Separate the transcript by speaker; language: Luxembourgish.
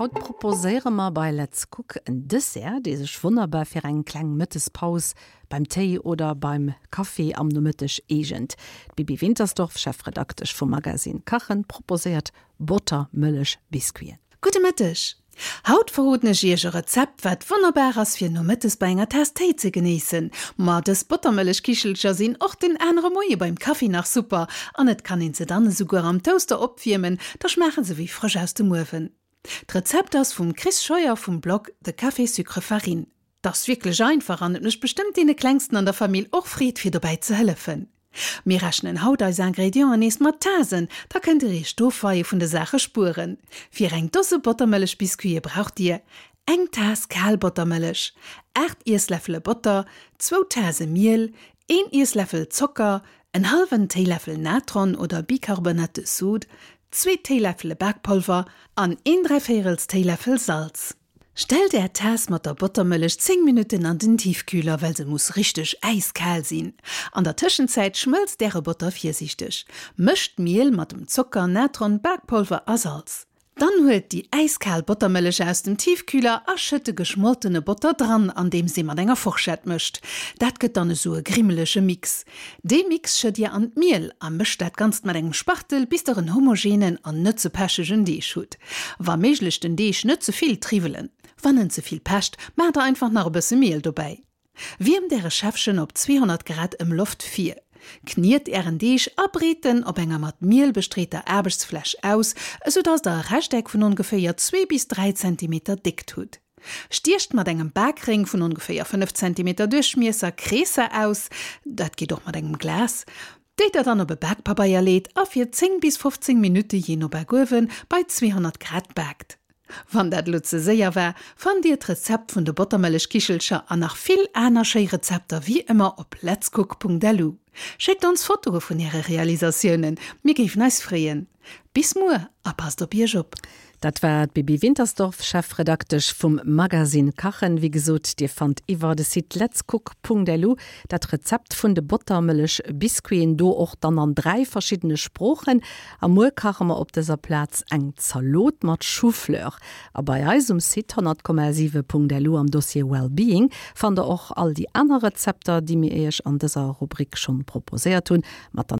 Speaker 1: Haut proposéiere mer bei Let's Cook en Dessert, dee sech wonnerbar fir eng kleng Mëttespaus beim Téi oder beim Kaffi am Nomëtteg eegent. D'Bibi Wintersdorf, Chefredaktesch vum Magazine Kachen, proposéiert Bottermëllech-Biscuiten.
Speaker 2: Gudde Mëtteg! Haut verroden ech iech e Rezept wat wonnerbar ass fir nomëttes bei enger Taass Téi ze genéissen. Ma dës Bottermëllechkichelcher sinn och den anere Moie beim Kaffi nach super an et kann een se dann esouguer am Toaster opwiermen, da schmaachen se wéi frësch aus dem Uewen. D'Rezept ass vum Chris Scheuer vum Blog The Café Sucre Farine. 't ass wierklech einfach an et mécht bestëmmt deene Klengsten an der Famill och Freed fir dobäi ze hëllefen. Mir rechnen haut eis Ingredienten nees mat Tasen, da kënnt dir iech d'Ofweie vun de Saache spueren. Fir eng Dose Bottermëllechbiscuite braucht dir, eng Taass kal Bottermëllech, 8 Iessläffele Botter, zwou Tase Miel, een Iessläffel Zocker, en hallwen Téiläffel Natron oder Bicarbonate de soude, zwee Téiläffele Bakpolver an een dräivéierels Téiläffel Salz. Stellt är Taass mat der Bottermëllech 10 Minutten an den Tiefkühler, well se muss richteg äiskal sinn. An der Tëschenzäit schmëlzt äre Botter virsiichteg. Mëscht d'Miel mat dem Zocker, Natron, Bakpolver a Salz. Dann huelt déi äiskal Bottermëllech aus dem Tiefkühler a schëtt de geschmoltene Botter dran, andeems ee mat enger Forschett mëscht. Dat gëtt dann esou e grimmelege Mix. Dee Mix schëtt dir an d'Miel a mëscht dat Ganzt mat engem Spachtel, bis der en homogenen an net ze pechegen Deeg hutt. Wa méiglech den Deeg net ze vill triwwelen. Wann en ze vill pecht, maacht der einfach nach e bësse Miel dobäi. Wiermt äre Schäffchen op 200 Grad Ëmloft vir. Kniet ären Deeg a breet en op enger mat Miel bestreeter Aarbechtsfläch aus, esou dass der e Rechteck vun ongeféier zwee bis 3 Zentimeter Déckt hutt. Stiecht mat engem Bakréng vun ongeféier 5 Zentimeter Duerchmiesser Kreesser aus, dat geet och mat engem Glas, déi der dann op e Bakpabeier leet a fir 10 bis 15 Minutte, jee no Bakuewen, bei 200 Grad baakt. Wann dat elo ze séier war, fannt dir d'Rezept vun de Bottermëllechkichelcher an nach vill aner schéi Rezepter wéi ëmmer op letscook.lu. Schéckt ons Fotoe vun äre Realisatiounen, mir géifen eis freeën. Bis muer a passt op iech op!
Speaker 1: Dat war d'Bibi Wintersdorf, Chefredaktesch vum Magazine Kachen. Wéi gesot, Dir fannt iwwer de Site letscook.lu dat Rezept vun de Bottermëllech-Biscuiten, do och dann an 3 verschiddene Sproochen. A muer kache mer op dëser Plaz eng Zalot mat Choufleur. A bei eis um Site 100,7.lu am Dossier Wellbeing fannt der och all déi aner Rezepter, déi mir Iech an dëser Rubrik schonn proposéiert hunn, mat der.